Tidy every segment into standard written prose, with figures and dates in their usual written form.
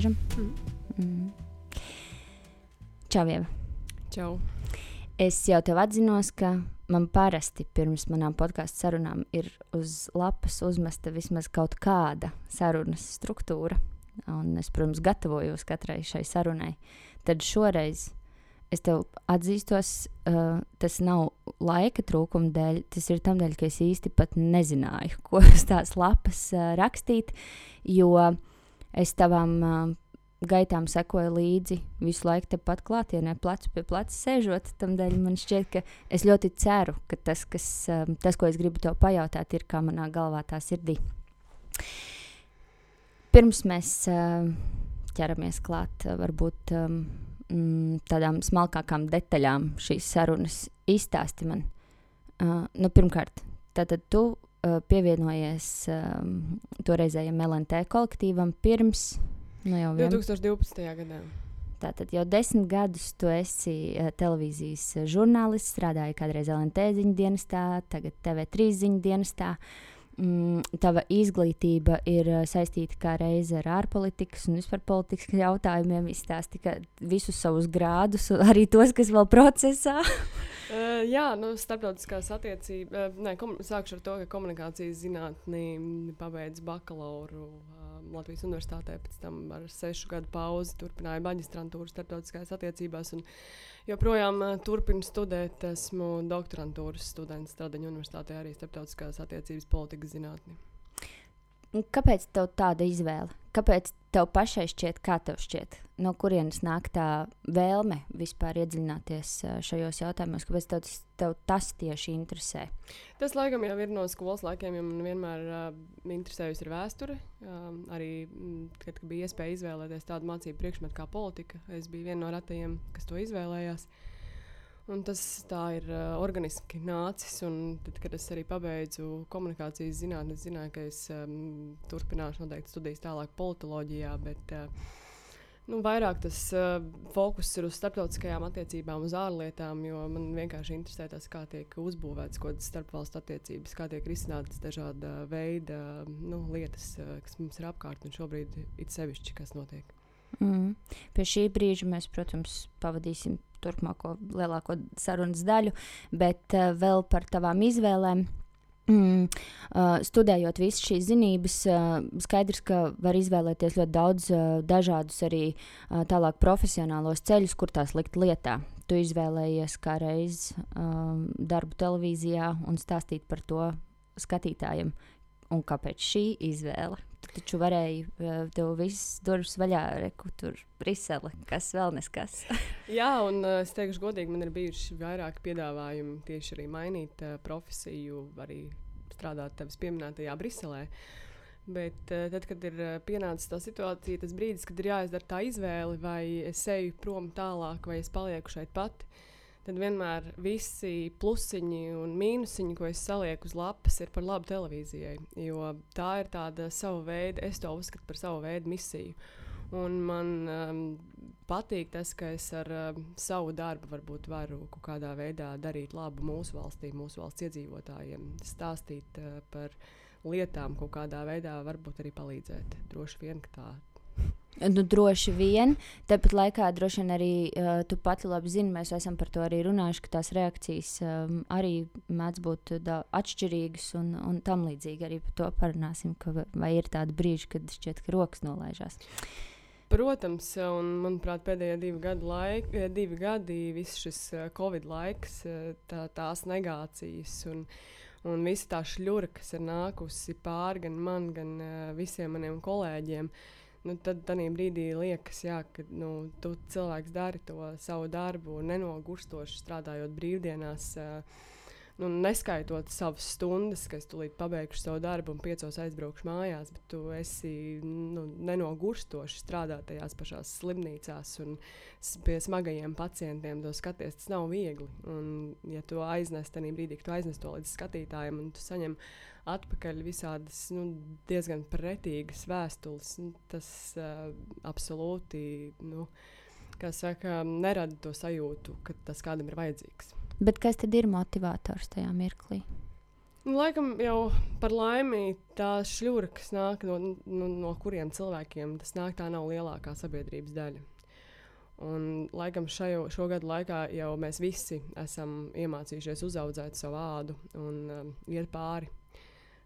Laižam. Čau, Ieva. Čau. Es jau tev atzinos, ka man parasti pirms manām podcastu sarunām ir uz lapas uzmesta vismaz kaut kāda sarunas struktūra. Un es, protams, gatavojos katrai šai sarunai. Tad šoreiz es tev atzīstos, tas nav laika trūkuma dēļ, tas ir tam dēļ, ka es īsti pat nezināju, ko uz tās lapas rakstīt, jo es tavām gaitām sekoju līdzi visu laiku tepat klātienē, plecu pie pleca sēžot. Tamdēļ man šķiet, ka es ļoti ceru, ka tas, ko es gribu tev pajautāt, ir kā manā galvā tā sirdī. Pirms mēs ķeramies klāt varbūt tādām smalkākām detaļām šīs sarunas, izstāsti man. Pirmkārt, tātad tu pievienojies toreizējam LNT kolektīvam pirms 2012. gadā. Tātad jau 10 gadus tu esi televīzijas žurnālists, strādāji kādreiz LNT ziņu dienestā, tagad TV3 ziņu dienestā. Tava izglītība ir saistīta kā reize ar ārpolitikas un vispār politikas jautājumiem. Izstāsti visus savus grādus, arī tos, kas vēl procesā. Starptautiskās attiecības. Sākšu ar to, ka komunikācijas zinātnī pabeidzu bakalauru Latvijas universitātē, pēc tam ar 6 gadu pauzi turpināju maģistrantūru starptautiskās attiecībās un joprojām turpinu studēt. Esmu doktorantūras students Stradiņu universitātē, arī starptautiskās attiecības politikas zinātni. Kāpēc tev tāda izvēle? Kāpēc tev pašai šķiet, kā tev šķiet? No kurienes nāk tā vēlme vispār iedziļināties šajos jautājumos? Kāpēc tev tas tieši interesē? Tas laikam jau ir no skolas laikiem, jo man vienmēr interesējusi ir vēsture. Arī, kad bija iespēja izvēlēties tādu mācību priekšmetu kā politika, es biju viena no retajiem, kas to izvēlējās. Un tas tā ir organiski nācis, un tad, kad es arī pabeidzu komunikācijas zinātni, es zināju, ka es turpināšu noteikti studijas tālāk politoloģijā, bet vairāk tas fokus ir uz starptautiskajām attiecībām, uz ārlietām, jo man vienkārši interesē tas, kā tiek uzbūvēts kaut kādas starpvalstu attiecības, kā tiek risinātas dažāda veida lietas, kas mums ir apkārt, un šobrīd it sevišķi, kas notiek. Pie šī brīža mēs, protams, pavadīsim turpmāko lielāko sarunas daļu, bet vēl par tavām izvēlēm. Studējot visas šīs zinības, skaidrs, ka var izvēlēties ļoti daudz dažādus arī tālāk profesionālos ceļus, kur tās likt lietā. Tu izvēlējies kā reiz darbu televīzijā un stāstīt par to skatītājiem. Un kāpēc šī izvēle? Tu taču varēji tev viss durvis vaļā, reku tur Brisele, kas vēl neskas. Jā, un es teikšu godīgi, man ir bijuši vairāk piedāvājumi tieši arī mainīt profesiju, arī strādāt tevis pieminētajā Briselē. Bet tad, kad ir pienācis tā situācija, tas brīdis, kad ir jāizdara tā izvēle, vai es eju prom tālāk, vai es palieku šeit pati, tad vienmēr visi plusiņi un mīnusiņi, ko es salieku uz lapas, ir par labu televīzijai. Jo tā ir tāda sava veida, es to uzskatu par savu veidu misiju. Un man patīk tas, ka es ar savu darbu varbūt varu kaut kādā veidā darīt labu mūsu valstī, mūsu valsts iedzīvotājiem, stāstīt par lietām kaut kādā veidā, varbūt arī palīdzēt. Droši vien, ka tā. Droši vien, tāpat laikā droši vien arī tu pati labi zini, mēs esam par to arī runājuši, ka tās reakcijas arī mēdz būt atšķirīgas un tam līdzīgi arī par to parunāsim, vai ir tādi brīži, kad šķiet, ka rokas nolaižās. Protams, un manuprāt pēdējie 2 gadi, viss šis Covid laiks, tās negācijas un visa tā šļura, kas ir nākusi pāri gan man, gan visiem maniem kolēģiem, tad tādā brīdī liekas, ka tu cilvēks dari to savu darbu nenogurstoši strādājot brīvdienās, neskaitot savas stundas, ka es tūlīt pabeigšu savu darbu un 5 aizbraukšu mājās, bet tu esi nenogurstoši strādā tajās pašās slimnīcās un pie smagajiem pacientiem to skaties, tas nav viegli. Un ja tu aiznes tādā brīdī, ka tu aiznes to līdz skatītājiem un tu saņem atpakaļ visādas diezgan pretīgas vēstules, tas absolūti, kā saka, nerada to sajūtu, ka tas kādam ir vajadzīgs. Bet kas tad ir motivators tajā mirklī? Laikam jau par laimi tās šļura, kas nāk no kuriem cilvēkiem, tas nāk, tā nav lielākā sabiedrības daļa. Un, laikam šo gadu laikā jau mēs visi esam iemācījušies uzaudzēt savu ādu un iet pāri.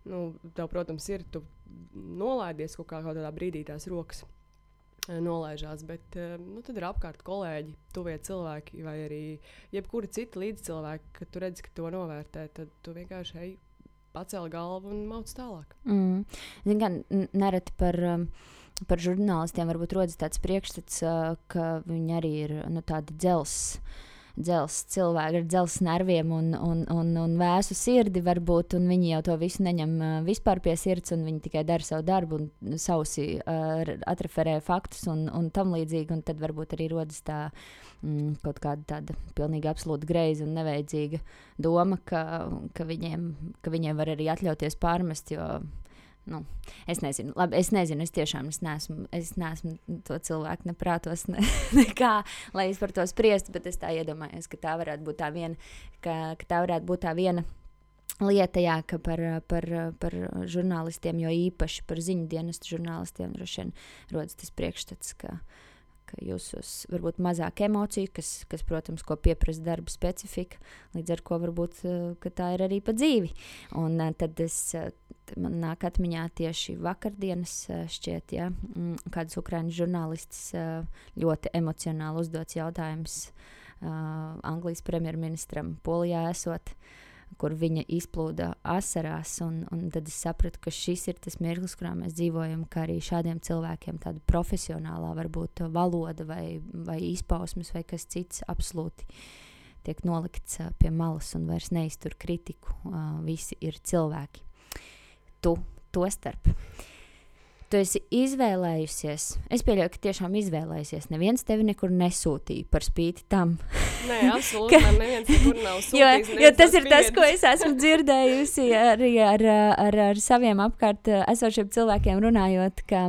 Tev, protams, tu nolaidies kaut kādā brīdī tās rokas nolaižās, bet tad ir apkārt kolēģi, tuvie cilvēki vai arī jebkuri citi līdzcilvēki, kad tu redzi, ka to novērtē, tad tu vienkārši pacēli galvu un mauc tālāk. Zin kā, nereti par žurnālistiem varbūt rodas tāds priekšstats, ka viņi arī ir tādi dzels cilvēki ar dzels nerviem un vēsu sirdi varbūt, un viņi jau to visu neņem vispār pie sirds, un viņi tikai dara savu darbu un sausi atreferē faktus un tam līdzīgi, un tad varbūt arī rodas tā kaut kāda tāda pilnīgi absolūti greiza un nevajadzīga doma, ka viņiem var arī atļauties pārmest, jo es nezinu, es tiešām es neesmu to cilvēku neprātos nekā, lai es par to spriestu, bet es tā iedomājos, ka tā varētu būt tā viena, ka tā varētu būt tā viena lieta, jā, ka par žurnālistiem, jo īpaši par ziņu dienestu žurnālistiem droši vien rodas tas priekšstats, ka jūsos varbūt mazāk emociju, kas, protams, ko pieprasa darba specifika, līdz ar ko varbūt, ka tā ir arī pa dzīvi. Un tad man nāk atmiņā tieši vakardienas šķiet, ja, kāds ukraiņu žurnālists ļoti emocionāli uzdots jautājums Anglijas premjerministram Polijā esot, kur viņa izplūda asarās, un tad es sapratu, ka šis ir tas mirklis, kurā mēs dzīvojam, ka arī šādiem cilvēkiem tāda profesionālā varbūt valoda vai izpausmes vai kas cits absolūti tiek nolikts pie malas un vairs neiztur kritiku. Visi ir cilvēki. Tu to starp. Tu esi izvēlējusies, es pieļauju, ka tiešām izvēlējusies, neviens tevi nekur nesūtīja par spīti tam. Nē, absolūti, man neviens nekur nav sūtījis. jo tas ir tas, ko es esmu dzirdējusi arī ar saviem apkārt esošiem cilvēkiem runājot, ka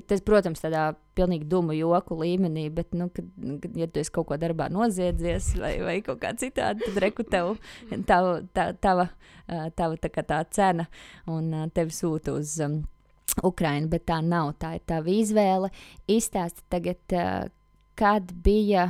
tas, protams, tādā pilnīgi dumu joku līmenī, bet, kad ja tu esi kaut ko darbā noziedzies vai kaut kā citādi, tad reku tava tā kā tā cena un tevi sūta uz Ukrainu, bet tā nav, tā ir tava izvēle. Izstāsti tagad, kad bija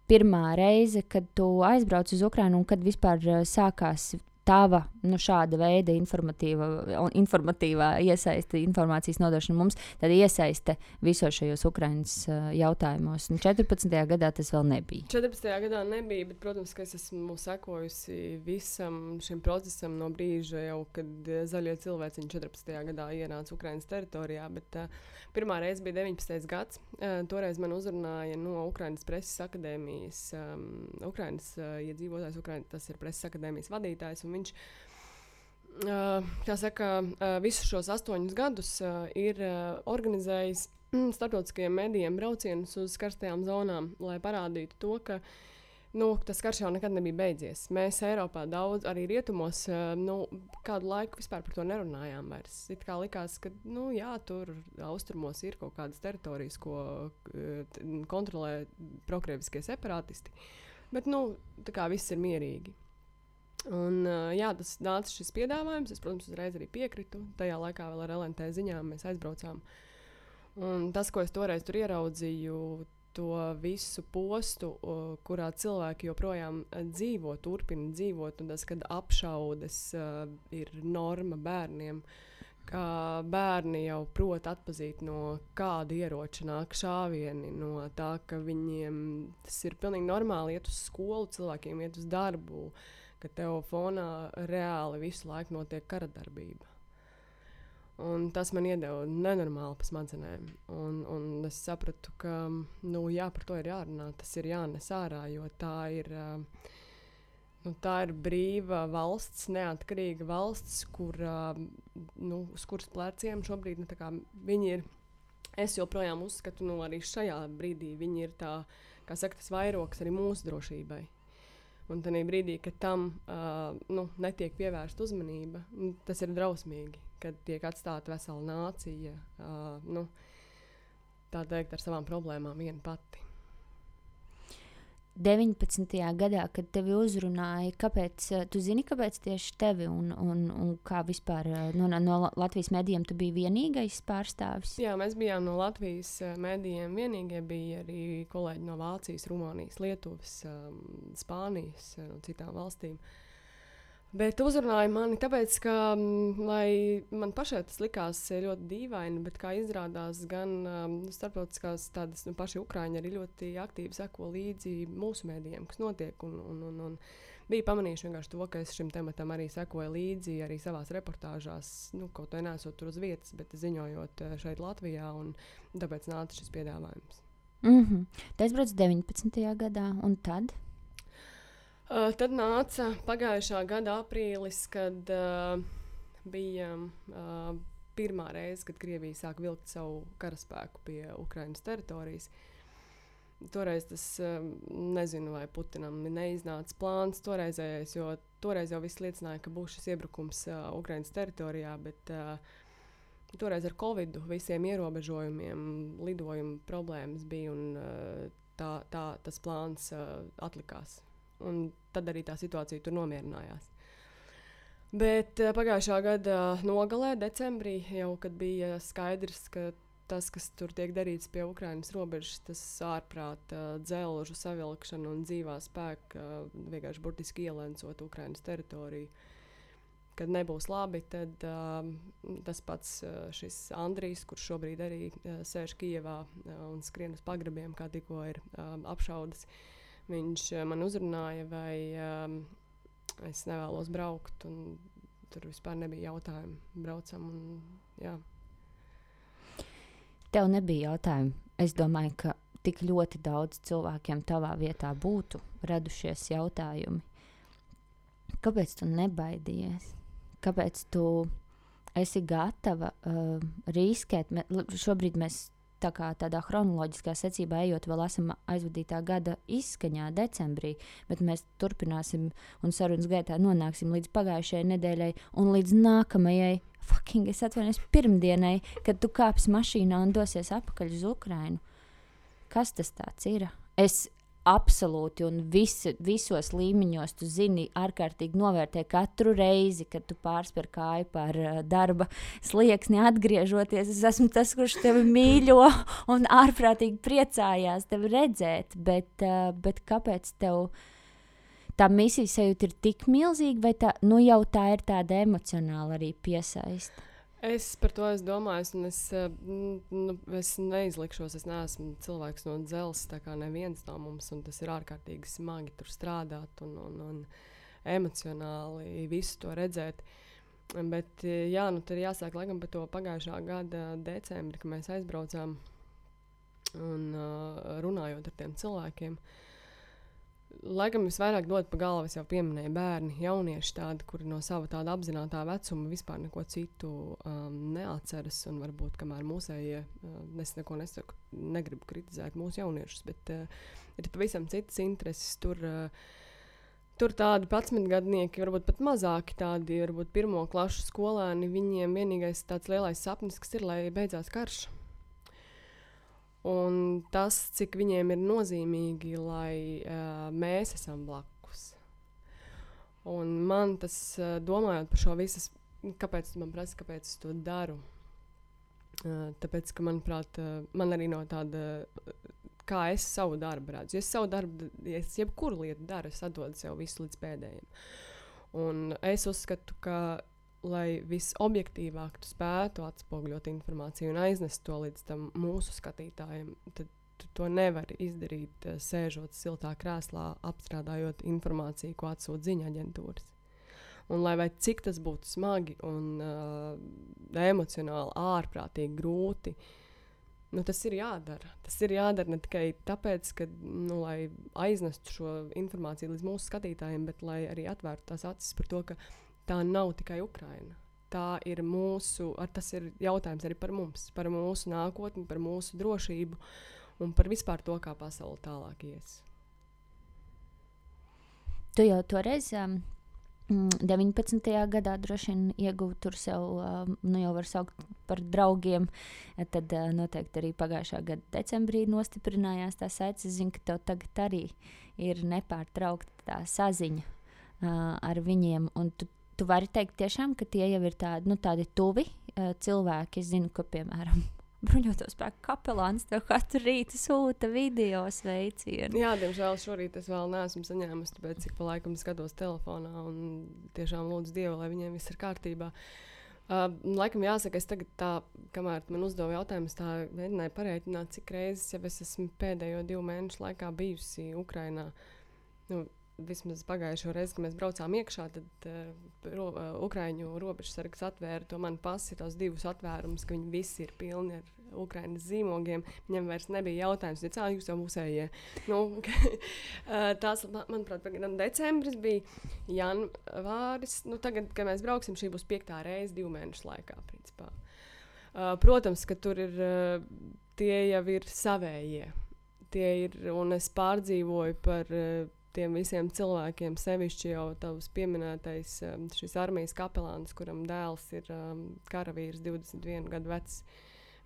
pirmā reize, kad tu aizbrauc uz Ukrainu un kad vispār sākās tava šāda veida informatīvā iesaiste, informācijas nodošana mums, tad iesaiste visos šajos Ukrainas jautājumos. 14. gadā tas vēl nebija. 14. gadā nebija, bet, protams, ka es esmu sekojusi visam šim procesam no brīža jau, kad zaļie cilvēciņi 14. gadā ienāca Ukrainas teritorijā, bet pirmā reize bija 19. gads. Toreiz man uzrunāja no Ukrainas preses akadēmijas, Ukrainas iedzīvotājs, tas ir preses akadēmijas vadītājs, un viņš, visus šos 8 gadus ir organizējis starptautiskajiem medijiem braucienus uz karstajām zonām, lai parādītu to, ka tas karš jau nekad nebija beidzies. Mēs Eiropā daudz, arī rietumos, kādu laiku vispār par to nerunājām vairs. It kā likās, ka, tur austrumos ir kaut kādas teritorijas, ko kontrolē prokrieviskie separātisti, bet, tā kā viss ir mierīgi. Un, tas nāca šis piedāvājums, es, protams, uzreiz arī piekritu. Tajā laikā vēl ar LNT ziņām mēs aizbraucām. Un tas, ko es toreiz tur ieraudzīju, to visu postu, kurā cilvēki joprojām turpina dzīvot, un tas, kad apšaudes ir norma bērniem, ka bērni jau prot atpazīt no kāda ieroča nāk šāvieni, no tā, ka viņiem tas ir pilnīgi normāli iet uz skolu, cilvēkiem iet uz darbu, ka tev fonā reāli visu laiku notiek kara darbība. Un tas man iedeva nenormāli pa smadzenēm. Un es sapratu, ka par to ir jārunā, tas ir jānes ārā, jo tā ir brīva valsts, neatkarīga valsts, kur, uz kuras pleciem šobrīd viņi ir. Es joprojām uzskatu, arī šajā brīdī viņi ir tā, kā saka, tas vairogs arī mūsu drošībai. Un tajā brīdī, kad tam netiek pievērsta uzmanība, tas ir drausmīgi, kad tiek atstāta vesela nācija, tā teikt, ar savām problēmām viena pati. 19. gadā, kad tevi uzrunāja, tu zini, kāpēc tieši tevi un kā vispār no Latvijas medijiem tu biji vienīgais pārstāvis? Jā, mēs bijām no Latvijas medijiem vienīgie, bija arī kolēģi no Vācijas, Rumānijas, Lietuvas, Spānijas, no citām valstīm. Bet uzrunāja mani tāpēc, ka lai man pašai tas likās ļoti dīvaini, bet kā izrādās gan starptautiskās tādas paši Ukraiņi arī ļoti aktīvi seko līdzi mūsu mēdījiem, kas notiek. Un bija pamanījuši vienkārši to, ka es šim tematam arī sekoju līdzi arī savās reportāžās, kaut vai nesot tur uz vietas, bet ziņojot šeit Latvijā, un tāpēc nāca šis piedāvājums. Tas brauc 19. gadā, un tad? Tad nāca pagājušā gada aprīlis, kad bija pirmā reize, kad Krievija sāk vilkt savu karaspēku pie Ukrainas teritorijas. Toreiz tas, nezinu, vai Putinam neiznāca plāns toreizējais, jo toreiz jau viss liecināja, ka būs šis iebrukums Ukrainas teritorijā, bet toreiz ar Covidu visiem ierobežojumiem, lidojumu problēmas bija, un tas plāns atlikās. Un tad arī tā situācija tur nomierinājās. Bet pagājušā gada nogalē, decembrī, jau kad bija skaidrs, ka tas, kas tur tiek darīts pie Ukrainas robežas, tas ārprāta dzelžu savilkšana un dzīvā spēka vienkārši burtiski ielencot Ukrainas teritoriju. Kad nebūs labi, tad tas pats šis Andrijs, kurš šobrīd arī sēž Kijevā un skrien uz pagrabiem, kā tikko ir apšaudas, viņš man uzrunāja, vai es nevēlos braukt, un tur vispār nebija jautājumu. Braucam, un jā. Tev nebija jautājumu. Es domāju, ka tik ļoti daudz cilvēkiem tavā vietā būtu radušies jautājumi. Kāpēc tu nebaidījies? Kāpēc tu esi gatava riskēt? Šobrīd mēs tādā chronoloģiskā secībā ejot, vēl esam aizvadītā gada izskaņā decembrī, bet mēs turpināsim un sarunas gaitā nonāksim līdz pagājušajai nedēļai un līdz nākamajai, es atvainojos, pirmdienai, kad tu kāpsi mašīnā un dosies atpakaļ uz Ukrainu. Kas tas tāds ir? Es absolūti un visos līmeņos, tu zini, ārkārtīgi novērtē katru reizi, kad tu pārspēr kāju par darba slieksni atgriežoties. Es esmu tas, kurš tevi mīļo un ārprātīgi priecājās tevi redzēt, bet kāpēc tev tā misijas sajūta ir tik milzīga, vai jau tā ir tāda emocionāla arī piesaista? Es par to domāju, un es neizlikšos, es neesmu cilvēks no dzelzs, tā kā neviens no mums, un tas ir ārkārtīgi smagi tur strādāt un emocionāli visu to redzēt. Bet jā, tad ir jāsāk laikam par to pagājušā gada decembri, kad mēs aizbraucām un runājot ar tiem cilvēkiem. Laikam visvairāk dod pa galvu, es jau pieminēju, bērni, jaunieši tādi, kuri no sava tāda apzinātā vecuma vispār neko citu neatceras, un varbūt kamēr mūsējie, es neko nesaku, negribu kritizēt mūsu jauniešus, bet ir pavisam citas intereses. Tur tādi 11-gadnieki, varbūt pat mazāki tādi, varbūt pirmo klašu skolēni, viņiem vienīgais tāds lielais sapnis, kas ir, lai beidzās karš. Un tas, cik viņiem ir nozīmīgi, lai mēs esam blakus. Un man tas, domājot par šo visas, kāpēc man prasa, kāpēc es to daru? Tāpēc, ka, manuprāt, man arī no tāda, kā es savu darbu redzu. Ja es savu darbu, ja es jebkuru lietu daru, es atdodu sev visu līdz pēdējiem. Un es uzskatu, ka lai visobjektīvāk tu spētu atspoguļot informāciju un aiznest to līdz tam mūsu skatītājiem, tad tu to nevari izdarīt, sēžot siltā krēslā, apstrādājot informāciju, ko atsūta ziņu aģentūras. Un lai vai cik tas būtu smagi un emocionāli ārprātīgi grūti, tas ir jādara. Tas ir jādara ne tikai tāpēc, ka, lai aiznestu šo informāciju līdz mūsu skatītājiem, bet lai arī atvērtu tās acis par to, ka tā nav tikai Ukraina. Tā ir tas ir jautājums arī par mums, par mūsu nākotni, par mūsu drošību un par vispār to, kā pasaule tālāk ies. Tu jau toreiz 19. gadā droši vien ieguva tur sev, jau var saukt par draugiem, tad noteikti arī pagājušā gada decembrī nostiprinājās tā saites. Es zinu, ka tev tagad arī ir nepārtraukta tā saziņa ar viņiem. Un tu vari teikt tiešām, ka tie jau ir tādi tuvi cilvēki. Es zinu, ka, piemēram, bruņoto spēku kapelāns tev katru rītu sūta video sveicienu. Jā, diemžēl šorīt es vēl neesmu saņēmusi, tāpēc cik pa laikam skatos telefonā un tiešām lūdzu Dievu, lai viņiem viss ir kārtībā. Laikam jāsaka, es tagad tā, kamēr man uzdeva jautājumus, tā mēģināju pareiķināt, cik reizes jau es esmu pēdējo 2 mēnešu laikā bijusi Ukrainā. Vismaz pagājušo reizi, kad mēs braucām iekšā, tad Ukraiņu robežsargs atvēra to manu pasi, tos 2 atvērumus, ka viņi visi ir pilni ar Ukrainas zīmogiem. Viņam vairs nebija jautājums, jūs jau musējie. Tās, manuprāt, decembris bija janvāris. Tagad, kad mēs brauksim, šī būs 5. reize 2 mēnešu laikā, principā. Protams, ka tur ir, tie jau ir savējie. Tie ir, un es pārdzīvoju par tiem visiem cilvēkiem, sevišķi jau tavs pieminētais šis armijas kapelāns, kuram dēls ir karavīrs, 21 gadu vecs.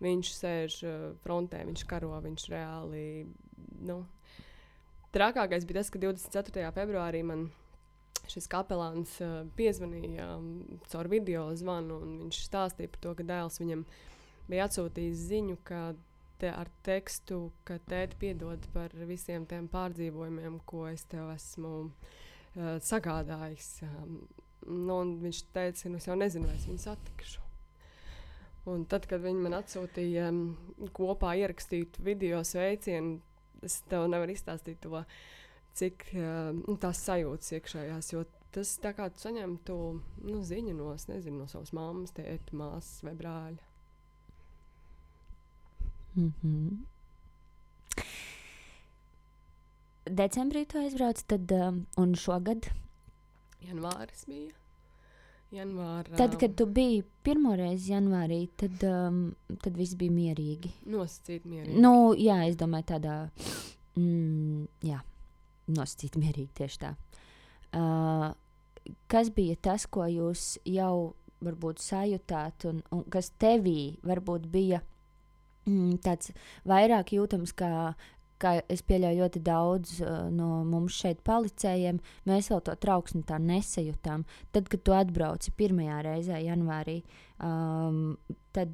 Viņš sēž frontē, viņš karo, viņš reāli, Trakākais bija tas, ka 24. februārī man šis kapelāns piezvanīja caur video zvanu, un viņš stāstīja par to, ka dēls viņam bija atsūtījis ziņu, ka ar tekstu, ka tēti piedod par visiem tiem pārdzīvojumiem, ko es tev esmu sagādājis. Un viņš teica, es jau nezinu, vai es viņu satikšu. Un tad, kad viņi man atsūtīja kopā ierakstītu video sveicienu, es tev nevaru izstāstīt to, cik tās sajūtas iekšējās, jo tas tā kā tu saņemtu ziņu no savas mammas, tēta, māsas vai brāļa. Decembrī tu aizbrauc, tad, un šogad? Janvāris bija. Tad, kad tu biji pirmoreiz janvārī, tad viss bija mierīgi. Nosacīt mierīgi. Jā, es domāju tādā, nosacīt mierīgi tieši tā. Kas bija tas, ko jūs jau varbūt sajūtāt, un kas tevī varbūt bija tāds vairāk jūtams, kā es pieļauju ļoti daudz no mums šeit palicējiem, mēs vēl to trauksmi tā nesajūtām. Tad, kad tu atbrauci pirmajā reizē janvārī, tad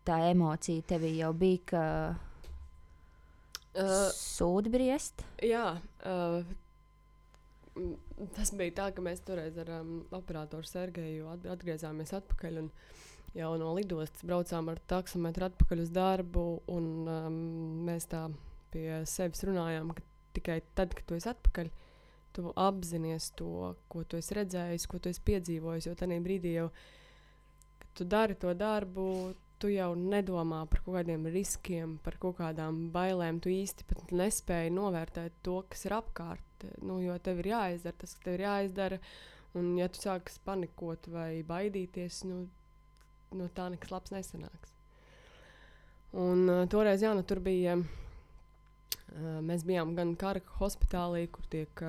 tā emocija tevī jau bija, ka sūdi briest? Jā, tas bija tā, ka mēs toreiz ar operatoru Sergeju atgriezāmies atpakaļ, un jau no lidostas braucām ar taksometru atpakaļ uz darbu, un mēs tā pie sevis runājām, ka tikai tad, kad tu esi atpakaļ, tu apzinies to, ko tu esi redzējis, ko tu esi piedzīvojis, jo tajā brīdī jau, kad tu dari to darbu, tu jau nedomā par kaut kādiem riskiem, par kaut kādām bailēm, tu īsti pat nespēji novērtēt to, kas ir apkārt, jo tev ir jāizdara tas, kas tev ir jāizdara, un ja tu sākas panikot vai baidīties, no tā nekas labs nesanāks. Un toreiz, tur bija, mēs bijām gan kara hospitālī, kur tiek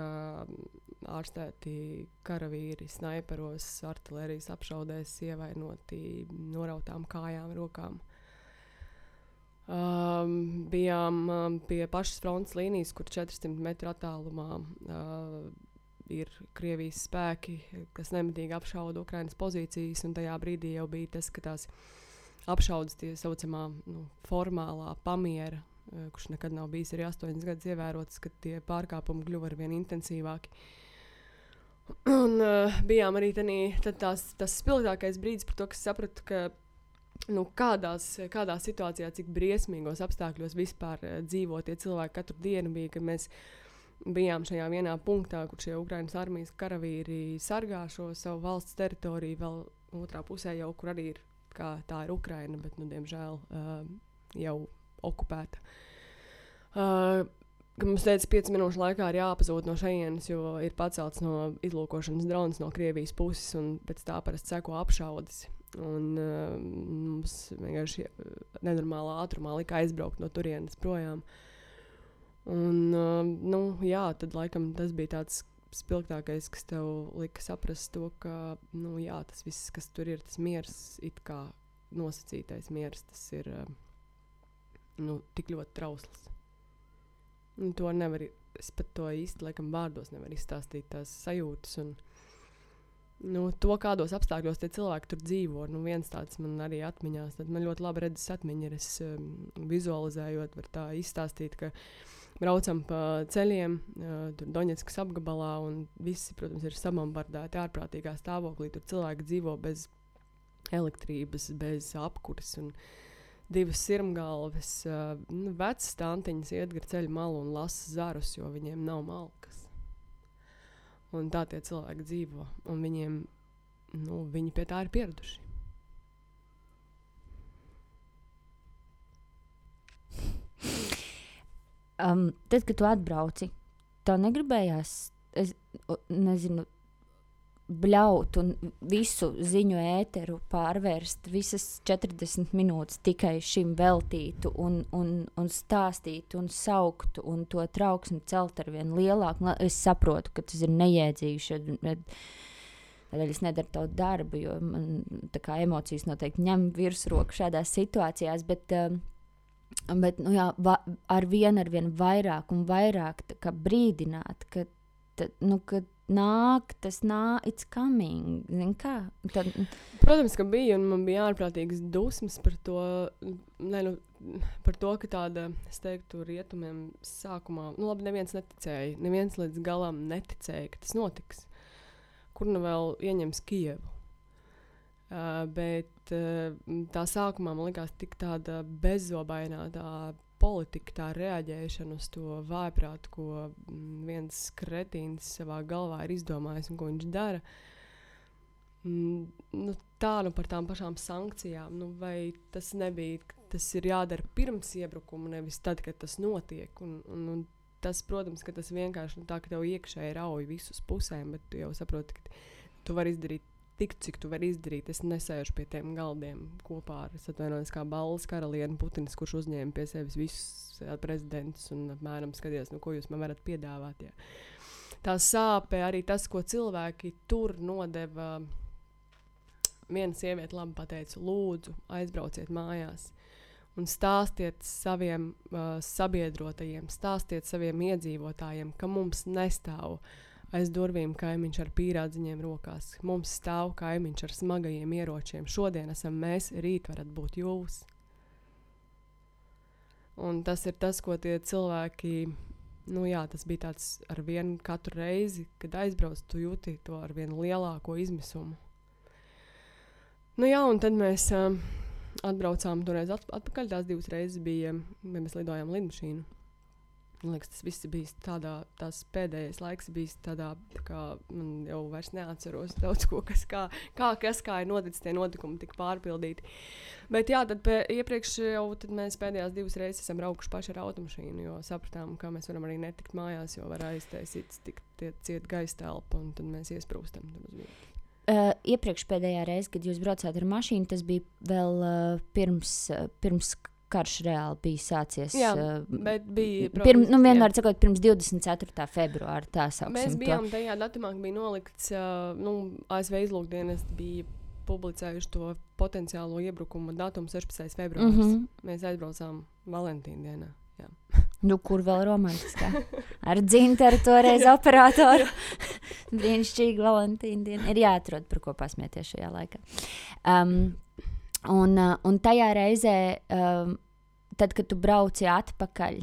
ārstēti karavīri snaiperos, artilērijas apšaudēs, ievainoti norautām kājām, rokām. Bijām pie pašas frontes līnijas, kur 400 metru attālumā ir Krievijas spēki, kas nemitīgi apšauda Ukrainas pozīcijas, un tajā brīdī jau bija tas, ka tās apšaudas tie saucamā formālā pamiera, kurš nekad nav bijis arī 8 gadus ievērots, kad tie pārkāpumi kļuva arvien intensīvāki. Un bijām arī tas spilgtākais brīdis par to, ka sapratu, ka kādā situācijā, cik briesmīgos apstākļos vispār dzīvo tie cilvēki katru dienu bija, kad mēs bijām šajā vienā punktā, kur šie Ukrainas armijas karavīri sargā šo savu valsts teritoriju, vēl otrā pusē jau, kur arī ir, kā tā ir Ukraina, bet, diemžēl, jau okupēta. Mums teica, 5 minūšu laikā ir jāpazūd no šejienes, jo ir pacelts no izlūkošanas drons no Krievijas puses, un pēc tā parasti seko apšaudes. Un mums vienkārši nenormālā ātrumā lika aizbraukt no turienes projām. Un, tad laikam tas bija tāds spilgtākais, kas tev lika saprast to, ka, tas viss, kas tur ir, tas miers, it kā nosacītais miers, tas ir, tik ļoti trausls. Un to nevar es pat to īsti, laikam, vārdos nevaru izstāstīt tās sajūtas un to, kādos apstākļos tie cilvēki tur dzīvo. Viens tāds man arī atmiņās, tad man ļoti labi redzes atmiņa ir, es vizualizējot, var tā izstāstīt, ka braucam pa ceļiem, tur Doņetskas apgabalā, un visi, protams, ir sabombardēti ārprātīgā stāvoklī. Tur cilvēki dzīvo bez elektrības, bez apkuras un 2 sirmgalves. Vecas tantiņas iet gar ceļu malu un lasa zarus, jo viņiem nav malkas. Un tā tie cilvēki dzīvo. Un viņiem, viņi pie tā ir pieraduši. Tad, kad tu atbrauci, tev negribējās, es nezinu, bļaut un visu ziņu ēteru pārvērst, visas 40 minūtes tikai šim veltītu un stāstītu un sauktu un to trauksmi celt ar vien lielāku. Es saprotu, ka tas ir nejēdzīgi, tādēļ es nedaru tavu darbu, jo man tā kā emocijas noteikti ņem virsroku šādās situācijās, bet ar vien vairāk un vairāk tā kā brīdināt, ka it's coming, zin kā? Protams, ka bija, un man bija ārprātīgas dusmas par to, par to, ka tāda, es teiktu, rietumiem sākumā, labi, neviens neticēja, neviens līdz galam neticēja, ka tas notiks. Kur vēl ieņems Kijevu? Bet tā sākumā man likās tik tāda bezzobainā tā politika, tā reaģēšana uz to vājprātu, ko viens kretīns savā galvā ir izdomājis un ko viņš dara. Par tām pašām sankcijām, vai tas nebija, tas ir jādara pirms iebrukuma, nevis tad, kad tas notiek. Un tas, protams, ka tas vienkārši tā, ka tev iekšēji rauj visus pusēm, bet tu jau saproti, ka tu vari izdarīt tik, cik tu vari izdarīt. Es nesēžu pie tiem galdiem kopā ar, es atvainojos, kā balles karalieni Putins, kurš uzņēma pie sevis visus prezidentus un apmēram skaties, ko jūs man varat piedāvāt. Jā. Tā sāpe, arī tas, ko cilvēki tur nodeva. Viena sieviete labi pateica, lūdzu, aizbrauciet mājās un stāstiet saviem sabiedrotajiem, stāstiet saviem iedzīvotājiem, ka mums nestāv aiz durvīm kaimiņš ar pīrādziņiem rokās. Mums stāv kaimiņš ar smagajiem ieročiem. Šodien esam mēs, rīt varat būt jūs. Un tas ir tas, ko tie cilvēki, tas bija tāds ar vienu katru reizi, kad aizbrauc, tu jūti to ar vienu lielāko izmisumu. Un tad mēs atbraucām toreiz atpakaļ, tās 2 reizes bija, mēs lidojām lidmašīnu. Man liekas, tas viss bija tās pēdējais laiks bijis tādā, kā man jau vairs neatceros daudz ko, kas kā ir noticis, tie notikumi tik pārpildīti. Bet tad iepriekš jau tad mēs pēdējās 2 reizes esam braukuši paši ar automašīnu, jo sapratām, ka mēs varam arī netikt mājās, jo var aiztaisīt ciet gaisa telpa, un tad mēs iesprūstam. Iepriekš pēdējā reize, kad jūs braucāt ar mašīnu, tas bija vēl pirms karš reāli bija sācies. Jā, bet bija, protams, vienmēr sakot, pirms 24. februāra, tā sauksim. Mēs bijām tajā datumā, ka bija nolikts, ASV izlūkdienas bija publicējuši to potenciālo iebrukumu datumu 16. februārs. Mēs aizbraucām Valentīna dienā. Jā. Kur vēl romantiskā? Ar Dzintaru toreiz operatoru. Brīnišķīgi Valentīna diena. Ir jāatrod, par ko pasmieties šajā laikā. Un tajā reizē, tad, kad tu brauci atpakaļ,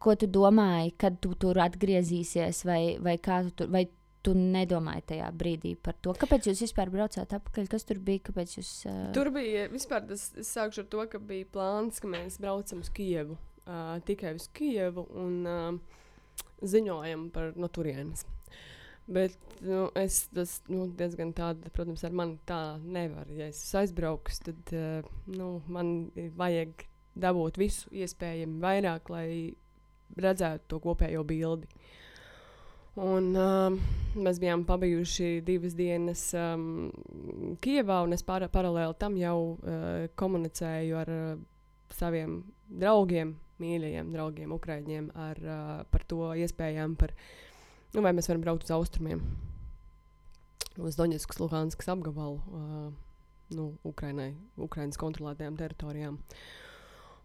ko tu domāji, kad tu tur atgriezīsies, vai tu nedomāji tajā brīdī par to? Kāpēc jūs vispār braucāt atpakaļ? Kas tur bija? Kāpēc jūs? Tur bija vispār, es sākšu ar to, ka bija plāns, ka mēs braucam uz Kijevu, tikai uz Kijevu un ziņojam par no turienes. Bet tas diezgan tāda, protams, ar mani tā nevar. Ja es aizbrauks, tad man vajag dabūt visu iespējami vairāk, lai redzētu to kopējo bildi. Un mēs bijām pabijuši 2 dienas Kijevā, un es paralēli tam jau komunicēju ar saviem draugiem, mīļajiem draugiem, ukraiņiem, par to iespējām, vai mēs varam braukt uz austrumiem, uz Doņetskas, Luhanskas apgabalu, Ukrainas kontrolētajām teritorijām.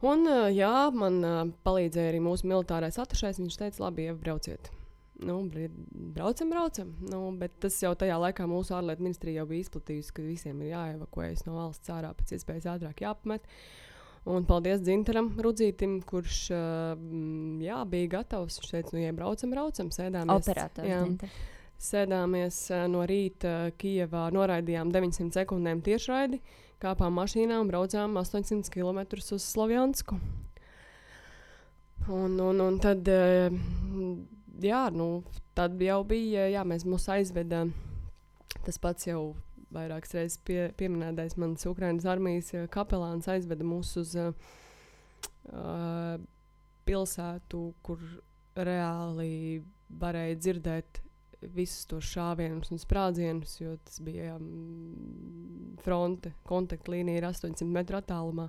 Un, jā, man palīdzēja arī mūsu militārais atašais. Viņš teica, labi, brauciet. Braucam. Bet tas jau tajā laikā mūsu ārlietu ministrija jau bija izplatījusi, ka visiem ir jāevakuējas no valsts ārā pēc iespējas ātrāk jāapmet. Un paldies Dzintaram Rudzītim, kurš bija gatavs. Viņš teica, braucam, sēdāmies. Operators Dzintars. Sēdāmies no rīta Kijevā, noraidījām 900 sekundēm tiešraidi, kāpām mašīnā un braucām 800 km uz Slovjansku. Un tad, tad jau bija, mūs aizveda, tas pats jau vairākas reizes pieminētais mans Ukrainas armijas kapelāns aizveda mūs uz pilsētu, kur reāli varēja dzirdēt visus tos šāvienus un sprādzienus, jo tas bija fronte, kontaktlīnija ir 800 metru attālumā.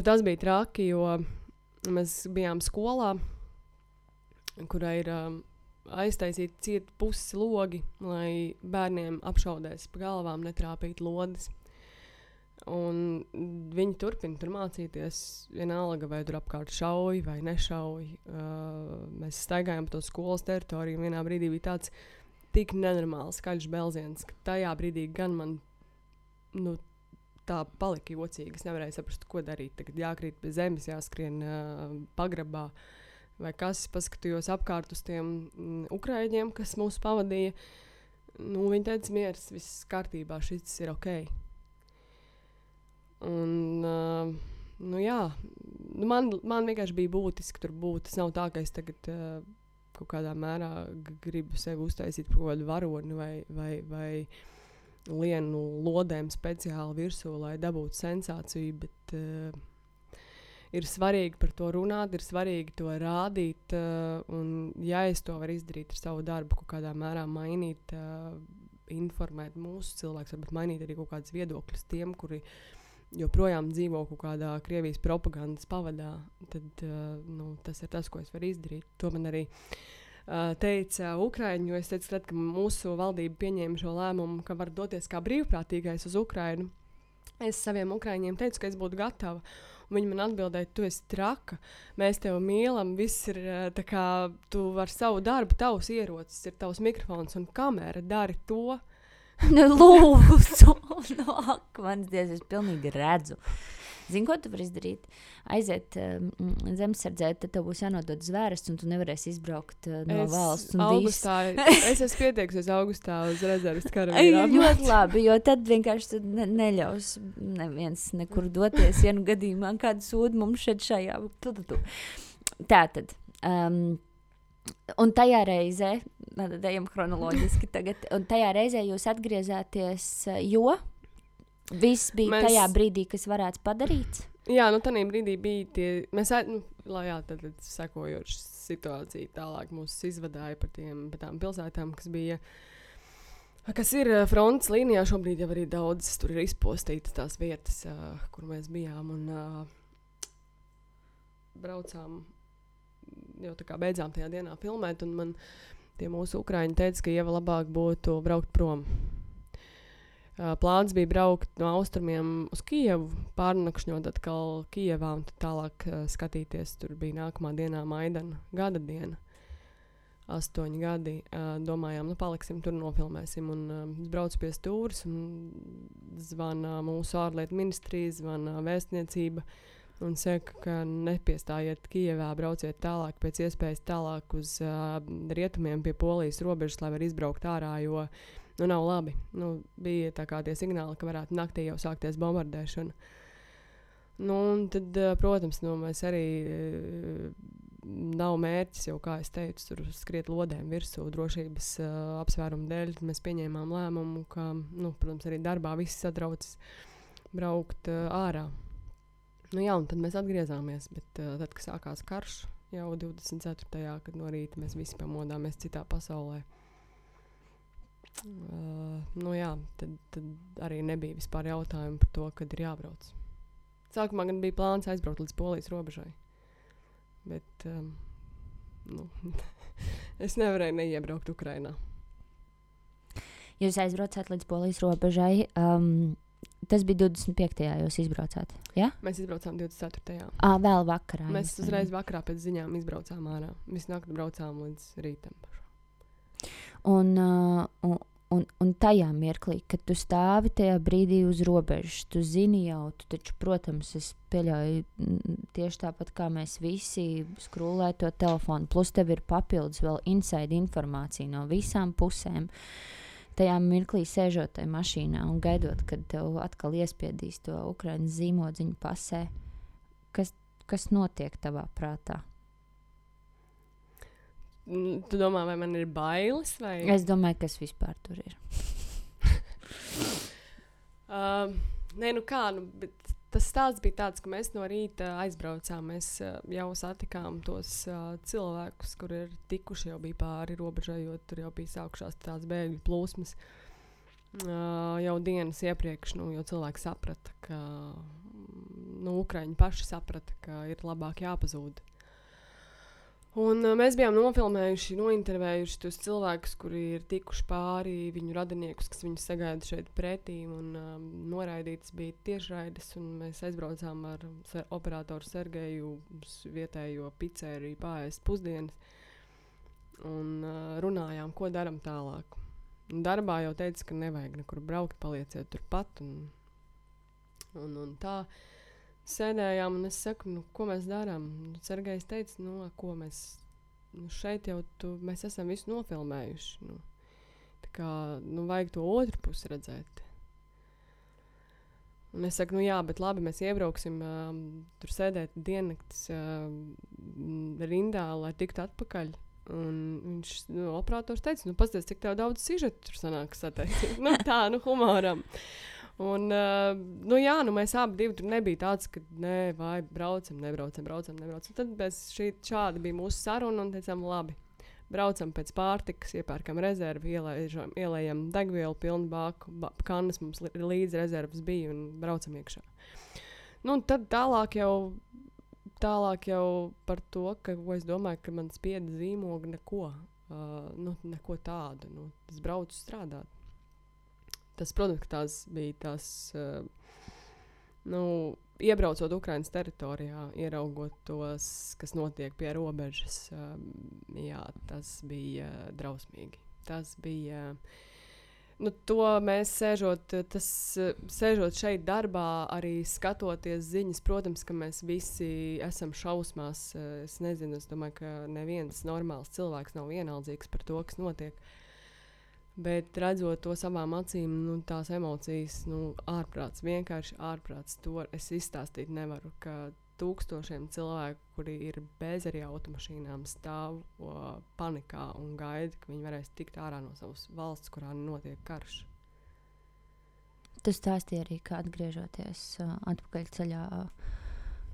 Tas bija traki, jo mēs bijām skolā, kurā ir aiztaisīti cieti pusi logi, lai bērniem apšaudēs pa galvām netrāpīt lodes. Un viņi turpina tur mācīties, vienalga, vai tur apkārt šauj vai nešauj. Mēs staigājām pa to skolas teritoriju, un vienā brīdī bija tāds tik nenormāls skaļš belziens, ka tajā brīdī gan man tā palika jocīgi. Es nevarēju saprast, ko darīt. Tagad jākrīt pie zemes, jāskrien pagrabā. Vai kas, paskatījos apkārt uz tiem ukraiņiem, kas mūs pavadīja. Viņi teica, miers, viss kārtībā, šis ir ok. Un, man vienkārši bija būtiski tur būt. Tas nav tā, ka es tagad kaut kādā mērā gribu sevi uztaisīt par kaut kādu varoni vai lienu lodēm speciāli virsū, lai dabūtu sensāciju, bet ir svarīgi par to runāt, ir svarīgi to rādīt, un ja es to varu izdarīt ar savu darbu, kaut kādā mērā mainīt, informēt mūsu cilvēkus, varbūt mainīt arī kaut kādas viedokļus tiem, kuri joprojām dzīvo kaut kādā Krievijas propagandas pavadā, tad tas ir tas, ko es varu izdarīt. To man arī teica Ukraiņu, jo es teicu, ka mūsu valdība pieņēma šo lēmumu, ka var doties kā brīvprātīgais uz Ukrainu. Es saviem Ukraiņiem teicu, ka es būtu gatava. Un viņi man atbildēja, tu esi traka, mēs tevi mīlam, viss ir tā kā, tu vari savu darbu, tavs ierocis, ir tavs mikrofons un kamera, dari to. Lūdzu, ak, mans Dievs, es pilnīgi redzu. Zini, ko tu vari izdarīt? Aiziet zemesardzē, tad tev būs jānodod zvērests, un tu nevarēsi izbraukt no valsts. Es esmu pieteiksies augustā uz rezerves karavīrām. Ļoti labi, jo tad vienkārši neļaus neviens nekur doties, ja gadījumā kādu sūdu mums šajā. Tātad. Un tajā reizē, ejam chronoloģiski tagad, un tajā reizē jūs atgriezāties, jo viss bija tajā brīdī, kas varētu padarīts? Jā, tajā brīdī bija tie, tad sekojoši situācija tālāk mūs izvadāja par tām pilsētām, kas ir frontes līnijā. Šobrīd jau arī daudz tur ir izpostītas tās vietas, kur mēs bijām un braucām. Jau tā kā beidzām tajā dienā filmēt, un man tie mūsu ukraiņi teica, ka Ieva labāk būtu braukt prom. Plāns bija braukt no austrumiem uz Kijevu, pārnakšņot atkal Kijevā un tad tālāk skatīties. Tur bija nākamā dienā Maidana gada diena, 8 gadi. Domājām, paliksim tur, nofilmēsim. Un es braucu pie stūres un zvana mūsu ārlietu ministrija, zvana vēstniecība. Un saka, ka nepiestājiet Kijevā, brauciet tālāk, pēc iespējas tālāk uz rietumiem pie Polijas robežas, lai var izbraukt ārā, jo nav labi. Bija tā kā tie signāli, ka varētu naktī jau sākties bombardēšana. Un tad, protams, mēs arī nav mērķis jau, kā es teicu, tur skriet lodēm virsū drošības apsvērumu dēļ. Mēs pieņēmām lēmumu, ka, protams, arī darbā viss satraucas braukt ārā. Un tad mēs atgriezāmies, bet tad, kad sākās karš, jau 24. kad no rīta mēs visi pamodāmies citā pasaulē. Tad arī nebija vispār jautājumu par to, kad ir jābrauc. Sākumā gan bija plāns aizbraukt līdz Polijas robežai, bet es nevarēju neiebraukt Ukrainā. Jūs aizbraucāt līdz Polijas robežai. Tas bija 25. jūs izbraucāt, ja? Mēs izbraucām 24. Vēl vakarā. Mēs uzreiz vakarā pēc ziņām izbraucām ārā. Visu nakti braucām līdz rītam. Un tajā mirklī, kad tu stāvi tajā brīdī uz robežas, tu zini jau, tu taču, protams, es pieļauju tieši tāpat kā mēs visi skrūlē to telefonu, plus tev ir papildus vēl inside informācija no visām pusēm. Tajā mirklī sēžot tajā mašīnā un gaidot, kad tev atkal iespiedīs to Ukrainas zīmodziņu pasē, kas notiek tavā prātā? Tu domā, vai man ir bailes? Vai? Es domāju, kas vispār tur ir. Nē, bet tas stāsts bija tāds, ka mēs no rīta aizbraucām. Mēs jau satikām tos cilvēkus, kur ir tikuši, jau bija pāri robežai, jo tur jau bija sākušās tās bēgļu plūsmas. Jau dienas iepriekš, jo cilvēki saprata, ka Ukraiņi paši saprata, ka ir labāk jāpazūd. Un mēs bijām nofilmējuši, nointervējuši tos cilvēkus, kuri ir tikuši pāri, viņu radiniekus, kas viņus sagaida šeit pretī, un noraidītas bija tiešraides, un mēs aizbraucām ar operatoru Sergeju uz vietējo pizzeriju pārēst pusdienas, un runājām, ko daram tālāk. Un darbā jau teica, ka nevajag nekur braukt, palieciet turpat, un tā. Sēdējām, un es saku, ko mēs darām? Sergejs teica, ko mēs šeit jau mēs esam visu nofilmējuši. Tā kā, vajag to otru pusi redzēt. Un es saku, jā, bet labi, mēs iebrauksim, tur sēdēt diennaktis rindā, lai tiktu atpakaļ. Un viņš, operators teica, pasties, cik tev daudz sižetu tur sanāk sateikt. Tā, humoram. Un, mēs abi divi tur nebija tāds, ka vai nebraucam. Tad šādi bija mūsu saruna un teicām, labi, braucam pēc pārtikas, iepērkam rezervi, ielējam degvielu pilnu bāku, kannas mums līdz rezervas bija un braucam iekšā. Un tad tālāk jau par to, ko es domāju, ka man spieda zīmogi neko tādu, es braucu strādāt. Tas, protams, ka tās bija tās, iebraucot Ukrainas teritorijā, ieraugot tos, kas notiek pie robežas, tas bija drausmīgi. Tas bija, to mēs sēžot šeit darbā, arī skatoties ziņas, protams, ka mēs visi esam šausmās. Es nezinu, es domāju, ka neviens normāls cilvēks nav vienaldzīgs par to, kas notiek. Bet redzot to savām acīm, tās emocijas, ārprāts, vienkārši ārprāts. To es izstāstīt nevaru, ka tūkstošiem cilvēku, kuri ir bez arī automašīnām, stāv panikā un gaida, ka viņi varēs tikt ārā no savas valsts, kurā notiek karš. Tu stāstīji arī, ka atgriežoties atpakaļ ceļā,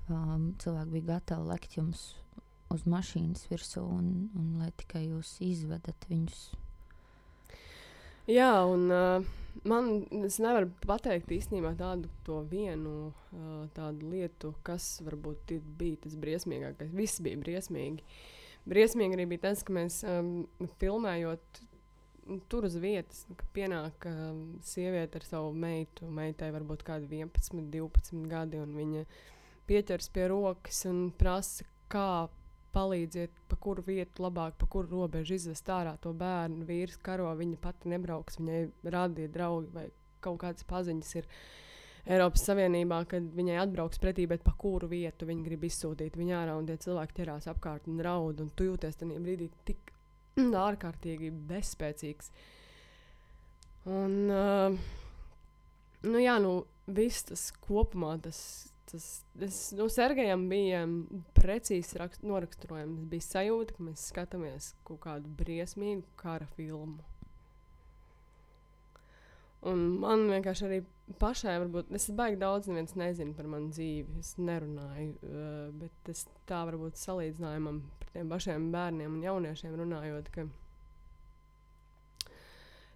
cilvēki bija gatavi lekt jums uz mašīnas virsū un lai tikai jūs izvedat viņus. Jā, un es nevaru pateikt īstenībā tādu vienu tādu lietu, kas varbūt bija tas briesmīgākais. Viss bija briesmīgi. Briesmīgi arī bija tas, ka mēs filmējot tur uz vietas, ka pienāk sieviete ar savu meitu. Meitai varbūt kādi 11, 12 gadi, un viņa pieķers pie rokas un prasa, kā palīdziet, pa kuru vietu labāk, pa kuru robežu izvest ārā to bērnu. Vīrs karo, viņa pati nebrauks, viņai rādīja draugi vai kaut kādas paziņas ir Eiropas Savienībā, kad viņai atbrauks pretī, bet pa kuru vietu viņi grib izsūtīt viņu ārā, un tie cilvēki ķerās apkārt un raud, un tu jūties tajā brīdī tik ārkārtīgi bezspēcīgs. Un, viss tas kopumā, Sergejam bija precīzi noraksturojams. Bija sajūta, ka mēs skatāmies kaut kādu briesmīgu kara filmu. Un man vienkārši arī pašai varbūt, es baigi daudz neviens nezinu par manu dzīvi, es nerunāju, bet es tā varbūt salīdzinājumam par tiem pašiem bērniem un jauniešiem runājot, ka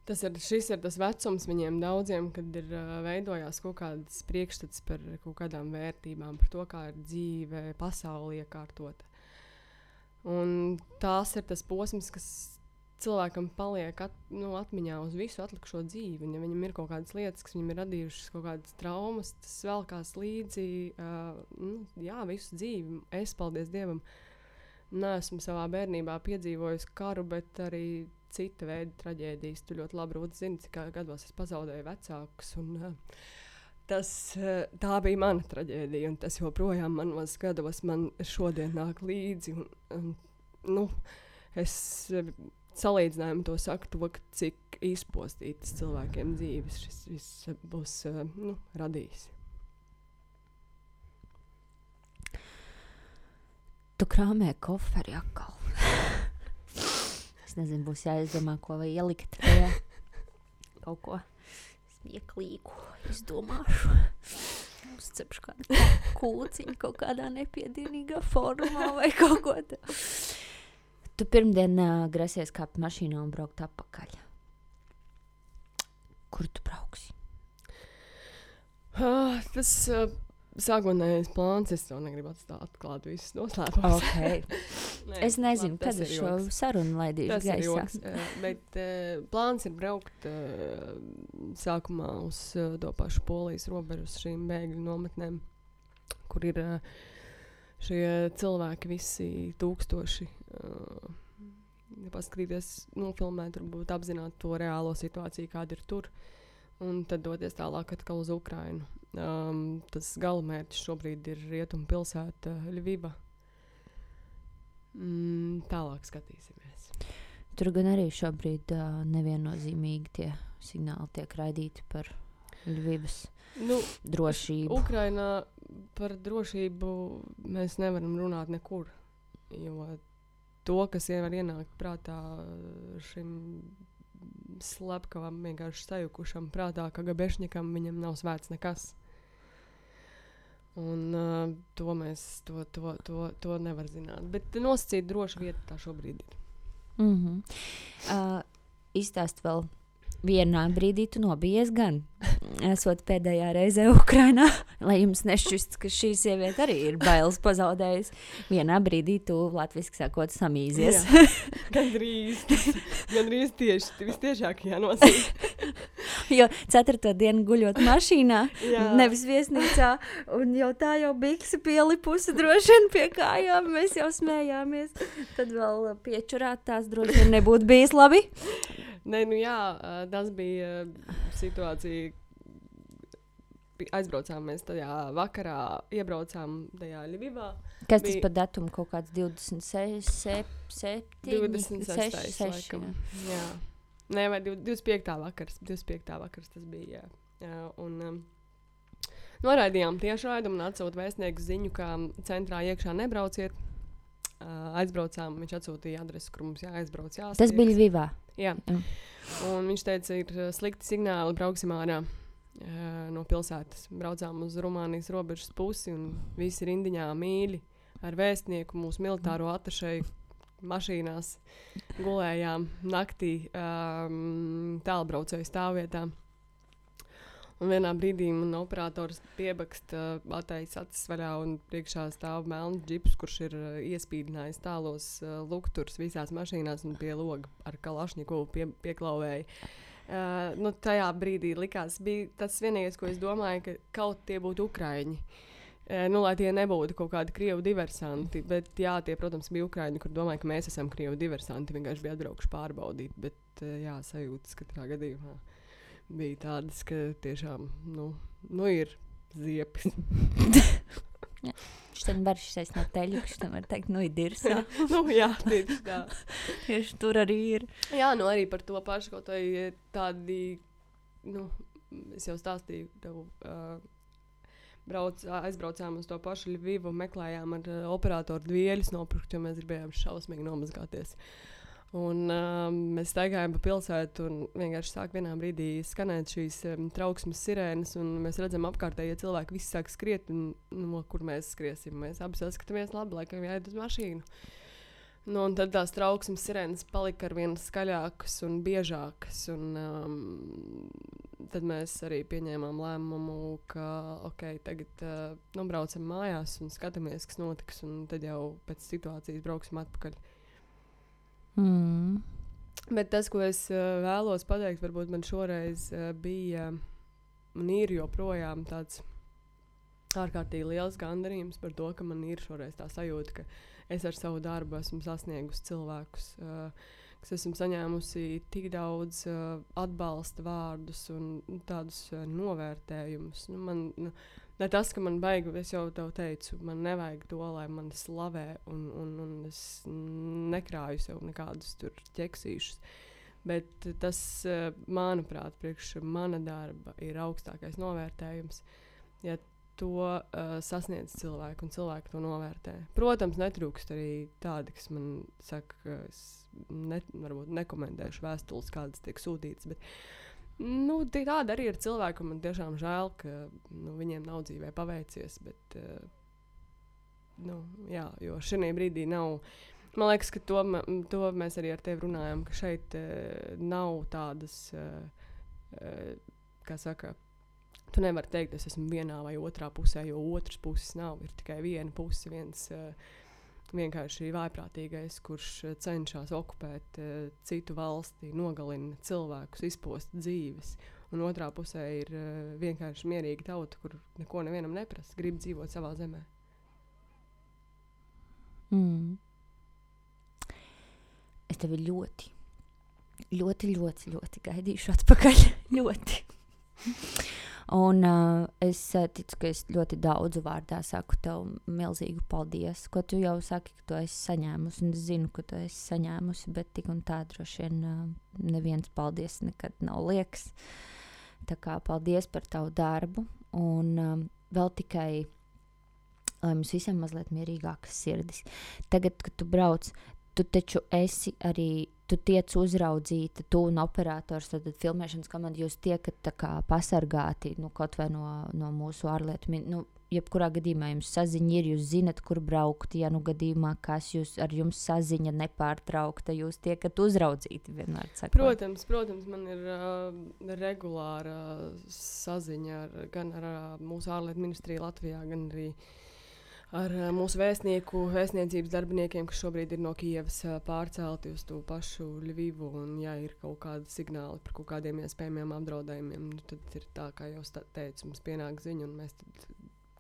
šis ir tas vecums viņiem daudziem, kad ir veidojās kaut kādas priekšstats par kaut kādām vērtībām, par to, kā ir dzīve, pasauli iekārtota. Un tās ir tas posms, kas cilvēkam paliek atmiņā uz visu atlikušo dzīvi. Un, ja viņam ir kaut kādas lietas, kas viņam ir radījušas kaut kādas traumas, tas velkās līdzi visu dzīvi. Es, paldies Dievam, neesmu savā bērnībā piedzīvojusi karu, bet arī cita veida traģēdijas. Tu ļoti labi, Rūta, zini, cik gados es pazaudēju vecākus. Un, tā bija mana traģēdija, un tas joprojām manos gados man šodien nāk līdzi. Es salīdzinājumu to saku, cik izpostītas cilvēkiem dzīves šis viss būs radījis. Tu krāmē koferi atkal. Es nezinu, būs jāizdomā, ko vai ielikt. Kaut ko smieklīgu izdomāšu. Uzcepšu kādu kūciņu kaut kādā nepiedienīgā formā vai kaut ko tā. Tu pirmdien grasies kāpt mašīnā un braukt atpakaļ. Kur tu brauksi? Tas sākotnējais plāns, es to negribu atklāt visus noslēpumus. Okay. Es nezinu, labi, kad es šo sarunu laidīšu gaisā. Tas ir joks, bet plāns ir braukt sākumā uz to pašu Polijas robežu, uz šīm bēgļu nometnēm, kur ir šie cilvēki visi tūkstoši. Paskatīties, nofilmēt, varbūt apzināt to reālo situāciju, kāda ir tur, un tad doties tālāk atkal uz Ukrainu. Tas galamērķis šobrīd ir rietumu pilsēta Ļviva. Tālāk skatīsimies. Tur gan arī šobrīd neviennozīmīgi tie signāli tiek raidīti par Ļvivas drošību. Ukrainā par drošību mēs nevaram runāt nekur, jo to, kas var ienākt prātā šim slepkavam, vienkārši sajukušam prātā, ka Gabešņikam viņam nav svēts nekas. Un to mēs to nevar zināt. Bet nosacīt droša vieta tā šobrīd ir. Izstāst vēl. Vienā brīdī tu nobijies gan, esot pēdējā reizē Ukrainā, lai jums nešķists, ka šī sieviete arī ir bailes pazaudējusi. Vienā brīdī tu, latviski sakot, samīzies. Gandrīz tieši, vistiešākajā nosīt. Jo 4. dienu guļot mašīnā, nevis viesnīcā, un jau tā jau bikse pielipusi droši vien pie kājām, mēs jau smējāmies. Tad vēl piečurāt tās droši vien nebūtu bijis labi. Nē, tas bija situācija. Aizbraucām mēs tajā vakarā, iebraucām tajā Ļvivā. Kas tas par datumu? Kaut kāds 26. 26. laikam. Jā. Nē, vai 25. vakars. 25. vakars tas bija, jā. Un noraidījām tiešraidumu un atsūt vēstnieku ziņu, ka centrā iekšā nebrauciet. Aizbraucām, viņš atsūtīja adresi, kur mums jāaizbrauc, jāstiekas. Tas bija Ļvivā? Jā. Un viņš teica, ir slikti signāli, brauksim ārā no pilsētas. Braucām uz Rumānijas robežas pusi un visi rindiņā mīļi ar vēstnieku, mūsu militāro atašeju mašīnās gulējām naktī tālbraucēju stāvvietā. Un vienā brīdī man operators piebaksta atteicis acis vaļā un priekšā stāv melns džips, kurš ir iespīdinājis tālos lukturs visās mašīnās un pie loga ar kalašņikovu pieklauvēja. Tajā brīdī likās, bija tas vienīgais, ko es domāju, ka kaut tie būtu ukraiņi. Lai tie nebūtu kaut kādi krievu diversanti, bet jā, tie, protams, bija ukraiņi, kur domāju, ka mēs esam krievu diversanti, vienkārši bija atbraukuši pārbaudīt, bet jā, sajūtas katrā gadījumā. Bija tādas, ka tiešām, ir ziepis. Šitien var šis no teļu, šitien var teikt, ir dirsā. Jā, tieši tā. Tieši tur arī ir. Jā, arī par to pašu, kaut vai tādi, es jau stāstīju tev, aizbraucām uz to pašu Ļvivu, meklējām ar operatoru dvieļus nopirkt, jo mēs gribējām šausmīgi nomazgāties. Un mēs staigājām pa pilsētu un vienkārši sāk vienā brīdī skanēt šīs trauksmes sirēnas, un mēs redzam apkārtējie cilvēki, visi sāk skriet, un kur mēs skriesim. Mēs abi saskatāmies labi, laikam jāiet uz mašīnu. Un tad tās trauksmes sirēnas palika arvien skaļākas un biežākas, un tad mēs arī pieņēmām lēmumu, ka tagad braucam mājās un skatāmies, kas notiks, un tad jau pēc situācijas brauksim atpakaļ. Bet tas, ko es vēlos pateikt, varbūt man šoreiz bija un ir joprojām tāds ārkārtīgi liels gandarījums par to, ka man ir šoreiz tā sajūta, ka es ar savu darbu esmu sasniegusi cilvēkus, kas esmu saņēmusi tik daudz atbalsta vārdus un tādus novērtējumus. Ne tas, ka man baigi, es jau tev teicu, man nevajag to, lai mani slavē un es nekrāju sev nekādus tur ķeksīšus. Bet tas, manuprāt, priekš mana darba ir augstākais novērtējums, ja to sasniedz cilvēku un cilvēku to novērtē. Protams, netrūkst arī tādi, kas man saka, ka es varbūt nekomentēšu vēstules, kādas tiek sūtītas, bet tāda arī ir cilvēka, un man tiešām žēl, ka viņiem nav dzīvē paveicies, bet jā, jo šajā brīdī nav, man liekas, ka to mēs arī ar tevi runājam, ka šeit nav tādas, kā saka, tu nevari teikt, es esmu vienā vai otrā pusē, jo otras puses nav, ir tikai viena puse, viens vienkārši vājprātīgais, kurš cenšas okupēt citu valsti, nogalina cilvēkus, izpost dzīves. Un otrā pusē ir vienkārši mierīga tauta, kur neko nevienam neprasa, grib dzīvot savā zemē. Es tevi ļoti, ļoti, ļoti, ļoti gaidīšu atpakaļ. Ļoti. Un es ticu, ka es ļoti daudzu vārdā saku tev milzīgu paldies, ko tu jau saki, ka tu esi saņēmusi, un es zinu, ka tu esi saņēmusi, bet tik un tā droši vien neviens paldies nekad nav liekas. Tā kā paldies par tavu darbu, un vēl tikai, lai mums visiem mazliet mierīgākas sirdis. Tagad, kad tu brauc, tu taču esi arī, tu tiec uzraudzīta, tu un operators, tad filmēšanas komanda, jūs tiekat tā kā pasargāti, kaut vai no mūsu ārlietu, jebkurā gadījumā jums saziņa ir, jūs zinat, kur braukt, ja gadījumā, kas ar jums saziņa nepārtraukta, jūs tiekat uzraudzīti vienmēr sakot. Protams, man ir regulāra saziņa gan ar mūsu ārlietu ministriju Latvijā, gan arī ar mūsu vēstniecības darbiniekiem, kas šobrīd ir no Kijevas pārcelti uz to pašu Ļvivu, un ja ir kaut kādi signāli par kaut kādiem iespējamiem apdraudējumiem, tad ir tā, kā jau teicu, mums pienāk ziņa, un mēs tad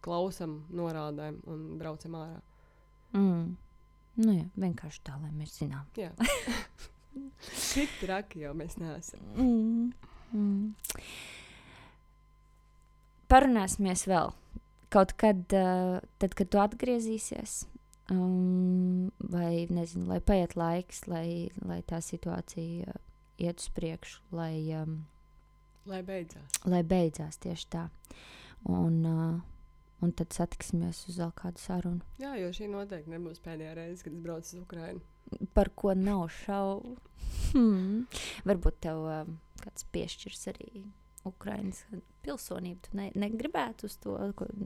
klausam, norādājam un braucam ārā. Jā, vienkārši tā, lai mēs zinām. Jā. Tik traki jau mēs neesam. Parunāsimies vēl. Kaut kad, tad, kad tu atgriezīsies, vai nezinu, lai paiet laiks, lai tā situācija iet uz priekšu, lai beidzās tieši tā. Un tad satiksimies uz vēl kādu sarunu. Jā, jo šī noteikti nebūs pēdējā reize, kad es braucu uz Ukrainu. Par ko nav šaubu. Varbūt tev kāds piešķirs arī Ukrainas pilsonību. Tu negribētu uz to,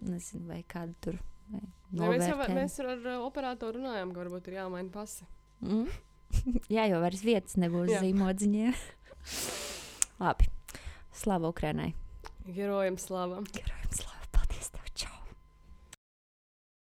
nezinu, vai kādu tur novērtējumu. Mēs ar operatoru runājām, ka varbūt ir jāmaina pasi. Jā, jo vairs vietas nebūs zīmodziņiem. Labi. Slava Ukrainai. Herojam slava.